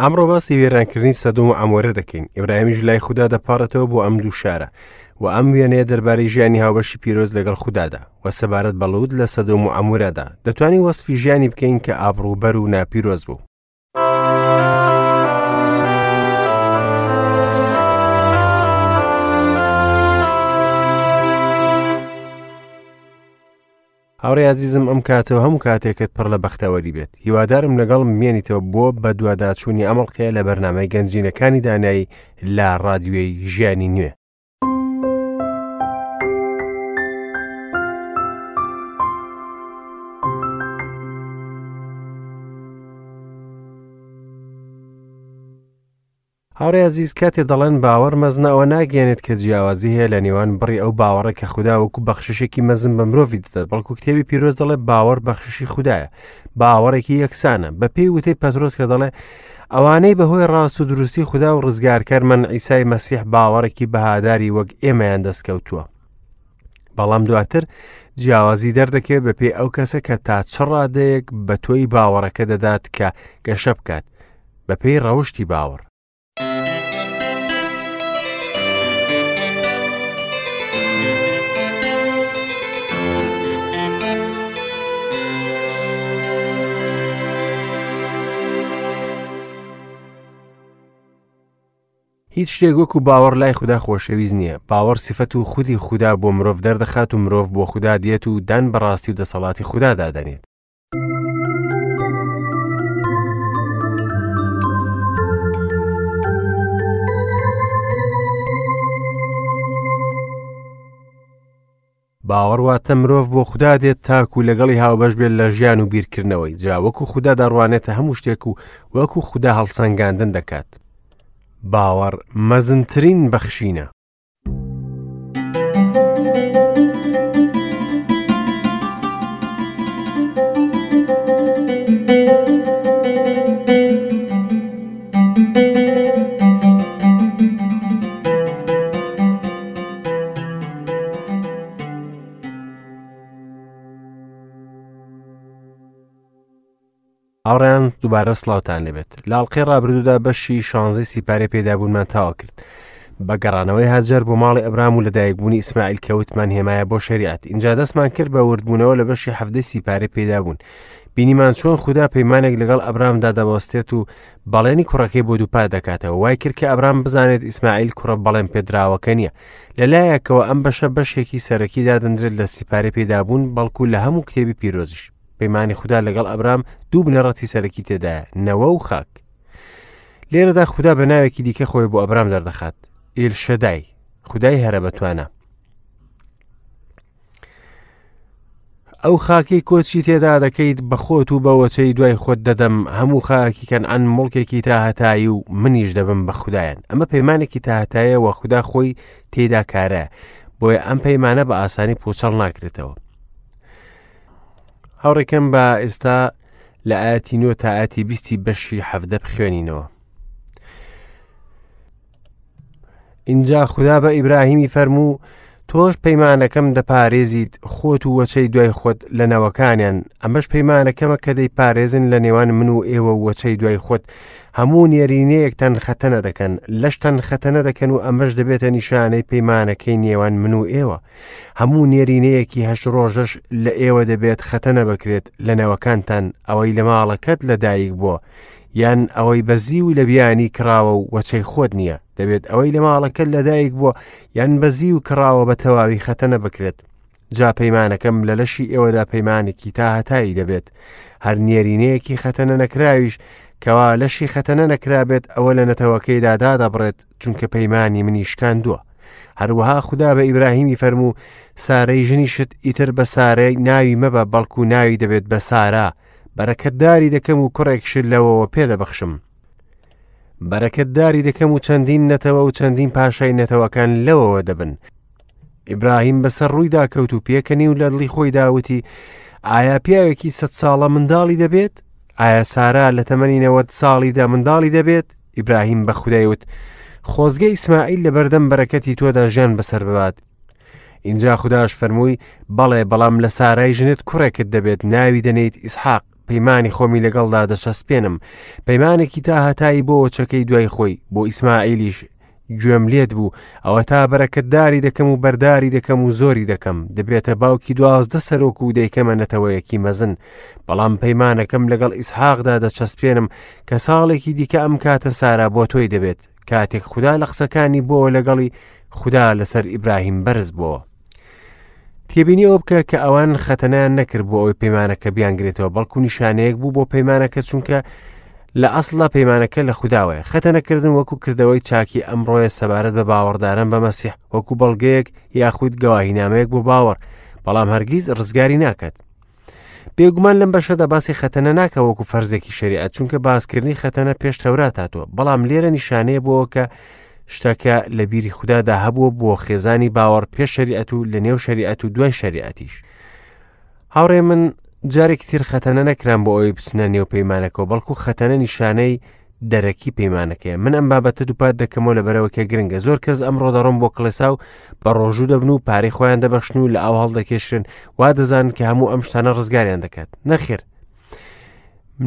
ئەمڕۆ باسی وێرانکردنی سەدۆم و عەمۆرە دەکەین. ئیبراهیمیش لای خودا دەپاڕێتەوە بۆ ئەم دوو شارە و ئەم وێنەیە دەربارەی ژیانی هاوبەشی پیرۆز لەگەڵ خودادا و سەبارەت بە لوط لە سەدۆم و عەمۆرەدا دەتوانین وەسفی ژیانی بکەین کە ئابڕووبەر و ناپیرۆز بوو. هاوڕێ ئازیزم ئەم کاتە و هەموو کاتێکت پڕ لە بەختەوەری بێت هیوادارم لەگەڵم بمێنیتەوە بۆ بەدواداچوونی ئەم ئەڵقەیە لە بەرنامەی گەنجینەکانی دانایی لە ڕادیۆی ژیانی نوێ. هاوڕێ ئازیز کاتێ دەڵێن باوەڕ مەزنە ئەوە ناگەیەنێت کە جیاوازی هەیە لە نێوان بڕی ئەو باوەڕە کە خودا وەکو بەخششێکی مەزن بە مرۆڤی دەدات بەڵکو کتێبی پیرۆز دەڵێ باوەڕ بەخششی خودایە باوەڕێکی یەکسانە بە پێی وتەی پەترۆس کە دەڵێ ئەوانەی بەهۆی ڕاست و دروستی خودا و ڕزگارکەرمان عیسای مەسیح باوەڕێکی بەهاداری وەک ئێمەیان دەستکەوتووە بەڵام دواتر جیاوازی دەردەکەوێت بەپێی ئەو کەسە کە تا چ ڕادەیەک بە تۆی باوەڕەکە دەدات کە گەشە بکات بەپێی ڕەوشی باوەڕ. هیچ شتێک وەکو باوەڕ لای خودا خۆشەویست نییە. باوەڕ سیفەت و خودی خودا بۆ مرۆڤ دەردەخات و مرۆڤ بۆ خودا دێت و دان بە ڕاستی و دەسەڵاتی خودادا دەنێت. باوەڕ واتە مرۆڤ بۆ خودا دێت تاکو لەگەڵی هاوبەش بێت لە ژیان و بیرکردنەوەی جا وەکو خودا دەڕوانێتە هەموو شتێک و وەکو خودا هەڵسەنگاندن دەکات. باوەڕ مەزنترین بەخشینە. هاوڕێیان دووبارە سڵاوتان لێبێت لە ئەڵقەی ڕابردوودا بەشی شانزەی سیپارەی پێدابوونمان تەواو کرد بە گەڕانەوەی هاجەر بۆ ماڵی ئەبرام و لەدایکبوونی ئیسماعیل کە وتمان هێمایە بۆ شەریعەت ئینجا دەستمان کرد بە وردبوونەوە لە بەشی حەڤدەی سیپارەی پێدابوون بینیمان چۆن خودا پەیمانێک لەگەڵ ئەبرامدا دەبەستێت و بەڵێنی کوڕەکەی بۆ دووپات دەکاتەوە وای کرد کە ئەبرام بزانێت ئیسماعیل کوڕە بەڵێن پێدراوەکە نییە لەلایەکەوە ئەم بەشە بەشێکی سەرەکی دادەنرێت لە سیپارەی پێدابوون بەڵکو لە هەموو کتێبی پیرۆزیش پەیمانی خودا لەگەڵ ئەبرام دوو بنەڕەتی سەرەکی تێدایە نەوە و خاک لێرەدا خودا بە ناوێکی دیکە خۆی بۆ ئەبرام دەردەخات ئیلشەدای خودای هەرە بەتوانە ئەو خاکەی کۆچی تێدا دەکەیت بە خۆت و بە وەچەی دوای خۆت دەدەم هەموو خاکی کەنعان مڵکێکی تاهەتایی و منیش دەبم بە خودایان ئەمە پەیمانێکی تاهەتایە وە خودا خۆی تێدا کارە بۆیە ئەم پەیمانە بە ئاسانی پوچەڵ ناکرێتەوە هاوڕێکەم بە ئێستا لە ئاەتی نۆ تا ئاەتی بیستی بەشی حەفدە بخوێنینەوە ئینجا خودا بە ئیبراهیمی فەرموو تۆش پەیمانەکەم دەپارێزیت خۆت و وەچەی دوای خۆت لە نەوەکانیان ئەمەش پەیمانەکەمە کە دەیپارێزن لە نێوان من و ئێوە و وەچەی دوای خۆت هەموو نێرینەیەکتان خەتەنە دەکەن لەشتان خەتەنە دەکەن و ئەمەش دەبێتە نیشانەی پەیمانەکەی نێوان من و ئێوە هەموو نێرینەیەکی هەشت ڕۆژەش لە ئێوە دەبێت خەتەنە بکرێت لە نەوەکانتان ئەوەی لە ماڵەکەت لەدایک بووە یان ئەوەی بە زیو لە بیانی کڕاوە و وەچەی خۆت نییە دەبێت ئەوەی لە ماڵەکەت لەدایک بووە یان بە زیو کڕاوە بە تەواوی خەتەنە بکرێت جا پەیمانەکەم لە لەشی ئێوەدا پەیمانێکی تا هەتایی دەبێت هەر نێرینەیەکی خەتەنە نەکراویش کەوا لەشی خەتەنە نەکرابێت ئەوە لە نەتەوەکەیدا دادەبڕێت چونکە پەیمانی منی شکاندووە هەروەها خودا بە ئیبراهیمی فەرموو سارەی ژنیشت ئیتر بە سارەی ناوی مەبە بەڵکو ناوی دەبێت بە سارا بەرەکەتداری دەکەم و کوڕێکشت لەوەوە پێدەبەخشم بەرەکەتداری دەکەم و چەندین نەتەوە و چەندین پاشای نەتەوەکان لەوەوە دەبن ئیبراهیم بەسەر ڕوویدا کەوت و پێکەنی و لە دڵی خۆیدا وتی ئایا پیاوێکی سە ساڵە منداڵی دەبێت ئایا سارا لە تەمەنی نەوەد ساڵیدا منداڵی دەبێت ئیبراهیم بە خودای وت خۆزگە ئیسماعیل لە بەردەم بەرەکەتی تۆدا ژیان بەسەر ببات ئینجا خوداش فەرمووی بەڵێ بەڵام لە سارای ژنت کوڕێکت دەبێت ناوی دەنێیت ئیسحاق. پەیمانی خۆمی لەگەڵدا دەچەسپێنم، پەیمانێکی تاهەتایی بۆ وەچەکەی دوای خۆی، بۆ ئیسماعیلیش گوێم لێت بوو، ئەوەتا بەرەکەتداری دەکەم و بەرداری دەکەم و زۆری دەکەم، دەبێتە باوکی 12 سەرۆک و دەیکەمە نەتەوەیەکی مەزن. بەڵام پەیمانەکەم لەگەڵ ئیسحاقدا دەچەسپێنم کە ساڵێکی دیکە ئەم کاتە سارا بۆ تۆی دەبێت. کاتێک خودا لە قسەکانی بۆوە لەگەڵی، خودا لەسەر ئیبراهیم بەرز بۆوە. تێبینی ئەوە بکە کە ئەوان خەتەنەیان نەکرد بۆ ئەوەی پەیمانەکە بیانگرێتەوە، بەڵکو نیشانەیەک بوو بۆ پەیمانەکە، چونکە لە ئەسڵدا پەیمانەکە لە خوداوەیە. خەتەنەکردن وەکو کردەوەی چاکی ئەمڕۆیە سەبارەت بە باوەڕداران بە مەسیح، وەکو بەڵگەیەک یاخود گەواهینامەیەک بۆ باوەڕ، بەڵام هەرگیز ڕزگاری ناکات. بێگومان لەم بەشەدا باسی خەتەنە ناکە وەکو فەرزێکی شەریعەت، چونکە باسکردنی خەتەنە پێش تەورات هاتووە، بەڵام لێرە نیشانەیە بۆ کە شتەکە لە بیری خودادا هەبووە بۆ خێزانی باوەڕ پێش شەریعەت و لە نێو شەریعەت و دوای شەریعەتیش. هاوڕێ من جارێکی تر خەتەنە نەکران بۆ ئەوەی بچنە نێو پەیمانەکەەوە، بەڵکو خەتەنە نیشانەی دەرەکی پەیمانەکەیە. من ئەم بابەتە دووپات دەکەمەوە لەبەرەوە کە گرنگە. زۆر کەس ئەمڕۆ دەڕۆن بۆ کڵێسا و بە ڕۆژوو دەبن و پارەی خۆیان دەبەخشن و لە ئاو هەڵدەکێشرێن، وا دەزانن کە هەموو ئەم شتانە ڕزگاریان دەکات. نەخێر،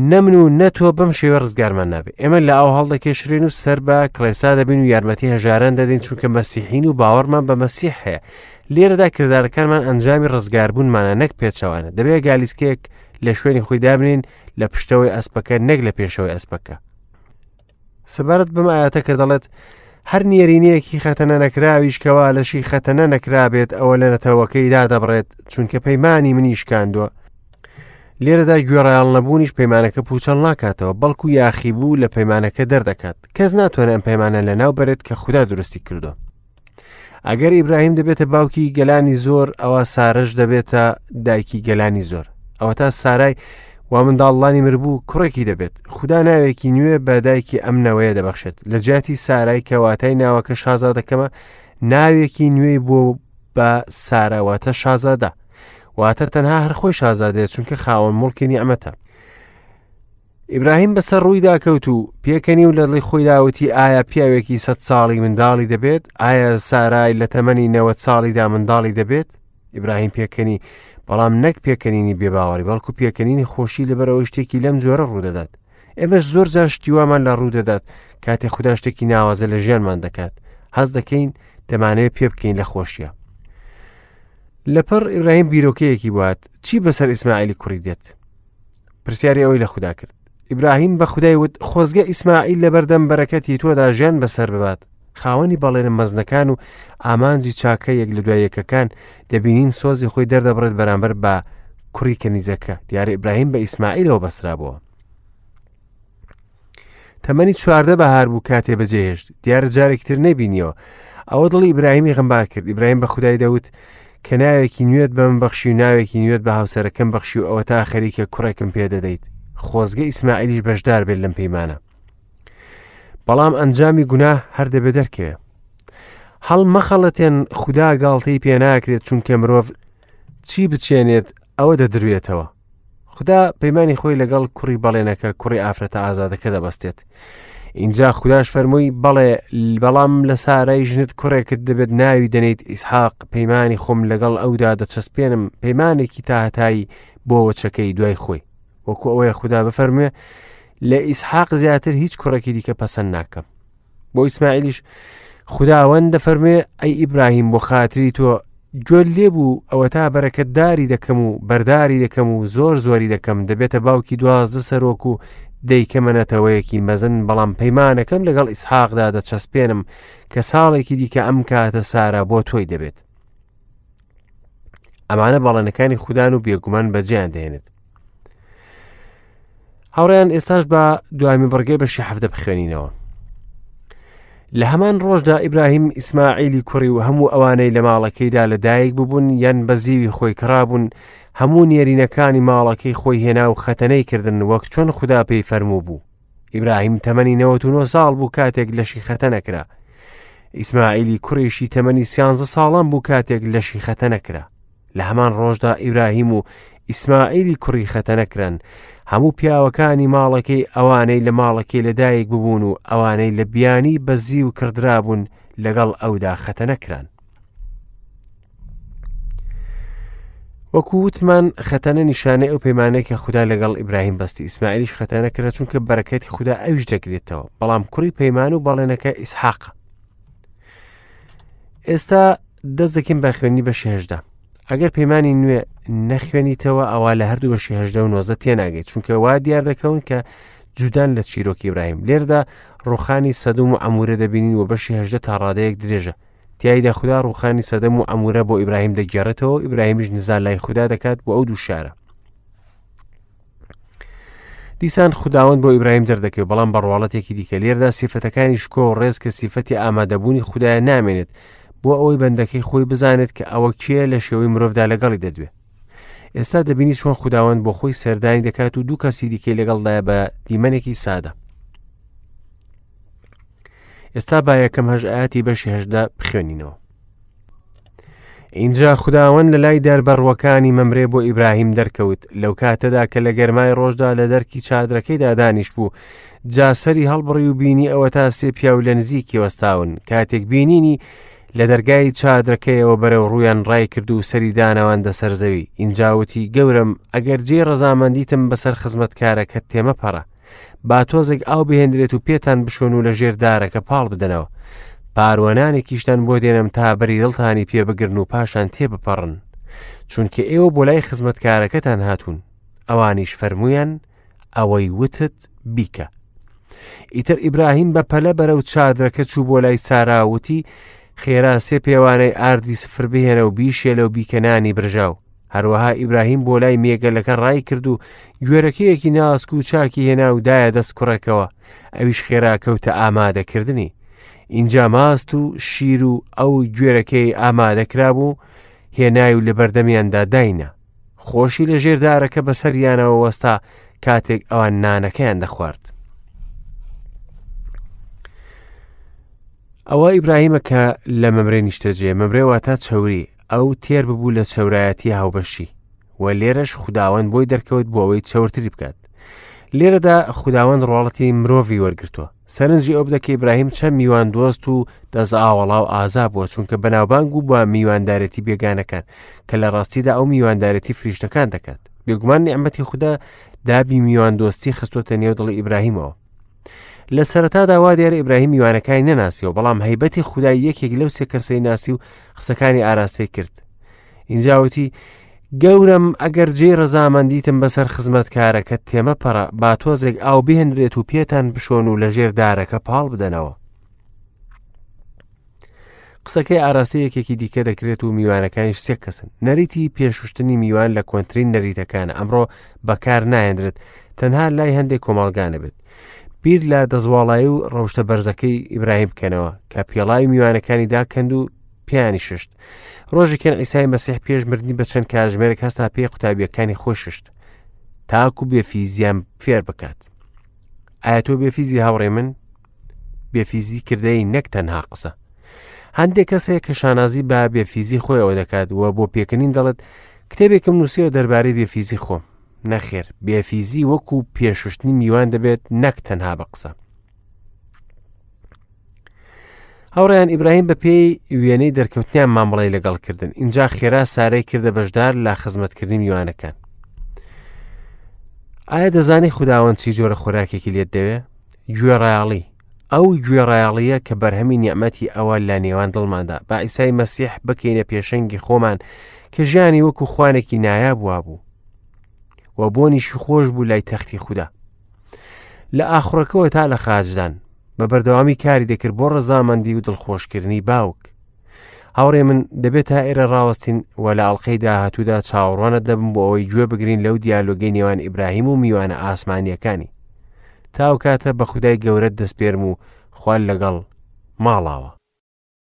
نە من و نە تۆ بەم شێوە ڕزگارمان نابێت. ئێمە لە ئاو هەڵدەکێشرێن و سەر بە کڵێسا دەبین و یارمەتی هەژاران دەدەین، چونکە مەسیحین و باوەڕمان بە مەسیح هەیە. لێرەدا کردارەکانمان ئەنجامی ڕزگاربوونمانە نەک پێچەوانە. دەبێت گالیسکەیەک لە شوێنی خۆی دابنین لە پشتەوەی ئەسپەکە نەک لە پێشەوەی ئەسپەکە. سەبارەت بەم ئاەتە کە دەڵێت هەر نێرینەیەکی خەتەنە نەکراویش کەوا لەشی خەتەنە نەکرابێت ئەوە لە نەتەوەکەی دادەبڕێت، چونکە پەیمانی منی شکاندووە. لێرەدا گوێڕایەڵ نەبوونیش پەیمانەکە پوچەڵ ناکاتەوە، بەڵکو یاخیبوو لە پەیمانەکە دەردەکات. کەس ناتوانێت ئەم پەیمانە لەناو بەرێت کە خودا دروستی کردووە. ئەگەر ئیبراهیم دەبێتە باوکی گەلانی زۆر، ئەوە سارەش دەبێتە دایکی گەلانی زۆر. ئەوەتا سارای وا منداڵانی مربوو کوڕێکی دەبێت. خودا ناوێکی نوێ بە دایکی ئەم نەوەیە دەبەخشێت. لە جیاتی سارای کە واتای ناوەکە شازادەکەمە، ناوێکی نوێی بۆ بە سارا واتە شازادە. واتە تەنها هەر خۆی شازادەیە، چونکە خاوەن موڵکی نیعمەتە. ئیبراهیم بەسەر ڕوویدا کەوت و پێکەنی و لە دڵی خۆیدا وتی ئایا پیاوێکی 100 ساڵی منداڵی دەبێت؟ ئایا سارای لە تەمەنی 90 ساڵیدا منداڵی دەبێت؟ ئیبراهیم پێکەنی، بەڵام نەک پێکەنینی بێباوەڕی، بەڵکو پێکەنینی خۆشی لەبەرئەوەی شتێکی لەم جۆرە ڕوودەدات. ئێمەش زۆر جار شتی وامان لە ڕوو دەدات کاتێ خودا شتێکی ناوازە لە ژیانمان دەکات، هەست دەکەین دەمانەوێت پێ بکەین لە خۆشیە. لەپڕ ئیبراهیم بیرۆکەیەکی بوات، چی بەسەر ئیسماعیلی کوڕی دێت؟ پرسیاری ئەوەی لە خودا کرد. ئیبراهیم بە خودای وت خۆزگە ئیسماعیل لەبەردەم بەرەکەتی تۆدا ژیان بەسەر ببات. خاوەنی بەڵێنە مەزنەکان و ئامانجی چاکە یەک لە دوای یەکەکان دەبینین سۆزی خۆی دەردەبڕێت بەرامبەر بە کوڕی کەنیزەکە. دیارە ئیبراهیم بە ئیسماعیلەوە بەسرابووە. تەمەنی 14 بەهار بوو کاتێ بەجێهێشت. دیارە جارێکی تر نەیبینیەوە. ئەوە دڵی ئیبراهیمی غەمبار کرد. ئیبراهیم بە خودای دەوت کە ناوێکی نوێت بە من بەخشی و ناوێکی نوێت بە هاوسەرەکەم بەخشی و ئەوە تا خەریکە کوڕێکم پێ دەدەیت. خۆزگە ئیسماعیلیش بەشدار بێت لەم پەیمانە. بەڵام ئەنجامی گوناه هەر دەبێ دەرکەوێ. هەڵمەخەڵەتێن خودا گاڵتەی پێ ناکرێت، چونکە مرۆڤ چی بچێنێت ئەوە دەدروێتەوە. خودا پەیمانی خۆی لەگەڵ کوڕی بەڵێنەکە، کوڕی ئافرەتە ئازادەکە دەبەستێت. ئینجا خوداش فەرمووی بەڵێ، بەڵام لە سارای ژنت کوڕێکت دەبێت ناوی دەنێیت ئیسحاق، پەیمانی خۆم لەگەڵ ئەودا دەچەسپێنم، پەیمانێکی تاهەتایی بۆ وەچەکەی دوای خۆی. وەکو ئەوەیە خودا بفەرموێ لە ئیسحاق زیاتر هیچ کوڕێکی دیکە پەسەند ناکەم. بۆ ئیسماعیلیش خداوەند دەفەرموێ ئەی ئیبراهیم بۆ خاتری تۆ گوێ لێ بوو، ئەوەتا بەرەکەتداری دەکەم و بەرداری دەکەم و زۆر زۆری دەکەم، دەبێتە باوکی 12 سەرۆک و دەیکەمە نەتەوەیەکی مەزن، بەڵام پەیمانەکەم لەگەڵ ئیسحاقدا دەچەسپێنم کە ساڵێکی دیکە ئەم کاتە سارا بۆ تۆی دەبێت. ئەمانە بەڵێنەکانی خودان و بێگومان بەجێیان دەهێنێت. هاوڕێیان ئێستاش بە دوامی بڕگەی بەشی حەفتە بخوێنینەوە. لە هەمان ڕۆژدا ئیبراهیم ئیسماعیلی کوڕی و هەموو ئەوانەی لە ماڵەکەیدا لە دایک ببوون یان بە زیوی خۆی کڕابوون، هەموو نێرینەکانی ماڵەکەی خۆی هێنا و خەتەنەی کردن وەک چۆن خودا پێی فەرموو بوو. ئیبراهیم تەمەنی 99 ساڵ بوو کاتێک لەشی خەتەنە کرا. ئیسماعیلی کوڕیشی تەمەنی 13 ساڵان بوو کاتێک لەشی خەتەنە کرا. لە هەمان ڕۆژدا ئیبراهیم و ئیسماعیلی کوڕی خەتەنە کران، هەموو پیاوەکانی ماڵەکەی ئەوانەی لە ماڵەکەی لەدایک ببوون و ئەوانەی لە بیانی بە زیو کڕدرابوون لەگەڵ ئەودا خەتەنە کران. وەکو وتمان خەتەنە نیشانەی ئەو پەیمانەیە کە خودا لەگەڵ ئیبراهیم بەستی ئیسماعیلیش خەتەنە کرا چونکە بەرەکەتی خودا ئەویش دەگرێتەوە بەڵام کوڕی پەیمان و بەڵێنەکە ئیسحاقە ئێستا دەست دەکەین بە خوێنی بەشی هەژدە ئەگەر پەیمانی نوێ نەخوێنیتەوە ئەوە لە هەردوو بەشی هەژدە و نۆزە تێناگەیت چونکە وا دیار دەکەون کە جودان لە چیرۆکی ئیبراهیم لێردا ڕوخانی سەدوم و عەمورە دەبینین و بەشی هەژدە تا ڕادەیەک درێژە تیایدا خودا ڕوخانی سەدەم و عەمورە بۆ ئیبراهیم دەگێڕێتەوە و ئیبراهیمیش نزا لای خودا دەکات بۆ ئەو دوو شارە دیسان خوداوەند بۆ ئیبراهیم دەردەکەوێت بەڵام بە ڕواڵەتێکی دیکە لێردا سیفەتەکانی شکۆ و ڕێز کە سیفەتی ئامادەبوونی خودایە نامێنێت بۆ ئەوەی بەندەکەی خۆی بزانێت کە ئەوە کێ لە شێوەی مرۆڤدا لەگەڵی دەدوێ ئێستا دەبینی چۆن خوداوەند بۆ خۆی سەردانی دەکات و دوو کەسی دیکەی لەگەڵدایە بە دیمەنێکی سادە ئێستا با یەکەم هەش ئاەتی بەشی هەشدا بخوێنینەوە ئینجا خوداوەند لە لای داربەڕووەکانی مەمرێ بۆ ئیبراهیم دەرکەوت لەو کاتەدا کە لە گەرمای ڕۆژدا لە دەرکی چادرەکەیدا دانیشت بوو جا سەری هەڵبڕی و بینی ئەوە تا سێ پیاو لە نزیکی وەستاون کاتێک بینینی لە دەرگای چادرەکەیەوە بەرەو ڕوویان ڕای کرد و سەری دانەواندە سەر زەوی ئینجا وتی گەورەم ئەگەر جێی ڕەزامەندیتم بەسەر خزمەتکارەکەت تێمەپەڕە با تۆزێک ئاو بهێنرێت و پێتان بشۆن و لە ژێر دارەکە پاڵ بدەنەوە پاروەنانێکیشتان بۆ دێنم تا بەری دڵتانی پێ بگرن و پاشان تێبپەڕن چونکە ئێوە بۆ لای خزمەتکارەکەتان هاتوون ئەوانیش فەرموویان ئەوەی وتت بیکە ئیتر ئیبراهیم بە پەلە بەرەو چادرەکە چوو بۆ لای سارا وتی خێرا سێ پێوانەی ئاردی سفر بهێنە و بیشێلە و بیکە نانی برژاو هەروەها ئیبراهیم بۆ لای مێگەلەکە ڕای کرد و گوێرەکەیەکی ناسک و چاکی هێنا و دایە دەست کوڕێکەوە ئەویش خێرا کەوتە ئامادەکردنی ئینجا ماست و شیر و ئەو گوێرەکەی ئامادەکرابوو هێنای و لە بەردەمیاندا داینا خۆشی لە ژێر دارەکە بەسەریانەوە وەستا کاتێک ئەوان نانەکەیان دەخوارد. ئەوە ئیبراهیمە کە لە مەمرێ نیشتەجێ مەمرێ واتە چەوری ئەو تێر ببوو لە چەورایەتی هاوبەشی و لێرەش خوداوەند بۆی دەرکەوت بۆ ئەوەی چەورتری بکات لێرەدا خوداوەند ڕۆڵەتی مرۆڤی وەرگتووە سەرنجی ئەو بدە کە ئیبراهیم چەند میوان دۆست و دەست ئاوەڵا و ئازا بووە چونکە بەناوبانگ و بە میواندارێتی بێگانەکان کە لە ڕاستیدا ئەو میواندارێتی فریشتەکان دەکات بێگومان نیعمەتی خودا دابی میوان دۆستی خستووەتە نێو دڵی ئیبراهیمەوە لە سەرەتادا وا دیارە ئیبراهیم میوانەکانی نەناسیەوە بەڵام هەیبەتی خودای یەکێک لەو سێ کەسەی ناسی و قسەکانی ئاراستەی کرد ئینجاوتی گەورەم ئەگەر جێی ڕەزامەندیتم بەسەر خزمەتکارەکەت تێمەپەڕە با تۆزێک ئاو بهێنرێت و پێتان بشۆن و لەژێر دارەکە پاڵ بدەنەوە قسەکەی ئاراستەی یەکێکی دیکە دەکرێت و میوانەکانیش سێ کەسن نەریتی پێشوشتنی میوان لە کۆنترین نەریتەکانە ئەمڕۆ بەکار نایەنرێت تەنها لای هەندێک کۆمەڵگا نەبێت بیر لە دەستواڵایی و ڕەوشتە بەرزەکەی ئیبراهیم بکەنەوە کە پێڵاوی میوانەکانی داکەند و پێیانی ششت ڕۆژێکیان ئیسای مەسیح پێش مردنی بە چەند کاتژمێرێک هەستا پێی قوتابیەکانی خۆی ششت تاکو بێفیزیان فێر بکات ئایا تۆ بێفیزی هاوڕێ من بێفیزی کردەی نەک تەنها قسە هەندێک کەس هەیە کە شانازی بە بێفیزی خۆیەوە دەکات و بۆ پێکەنین دەڵێت کتێبێکم نووسیوە دەربارەی بێفیزی خۆم نەخێر بێفیزی وەکو پێشوشتنی میوان دەبێت نەک تەنها بە قسە هاوڕیان ئیبراهیم بە پێی وێنەی دەرکەوتنیان مامەڵی لەگەڵ کردن اینجا خێرا سارەی کردە بەشدار لە خزمەتکردنی میوانەکان ئایا دەزانی خودداوەند چی جۆرە خۆراکێکی لێت دەوێ گوێڕایەڵی ئەو گوێڕایەڵییە کە بەرهەمی نیعمەتی ئەوە لە نێوان دڵماندا با ئیسای مەسیح بکەینە پێشەنگی خۆمان کە ژیانی وەکو خوانێکی نایاب وابوو و بۆنیشی خۆش بوو لای تەختی خودا لە ئاخڕەکەوە تا لە خاچدان بە بەردەوامی کاری دەکرد بۆ ڕەزامەندی و دڵخۆشکردنی باوک هاوڕێ من دەبێت تا ئێرە ڕاوەستین و لە ئەڵلقەی داهاتوودا چاوەڕوانت دەبم بۆ ئەوەی گوێ بگرین لەو دیالۆگەی نێوان ئیبراهیم و میوانە ئاسمانیەکانی تاو کاتە بە خودای گەورەت دەسپێرم و خوال لەگەڵ ماڵاوە.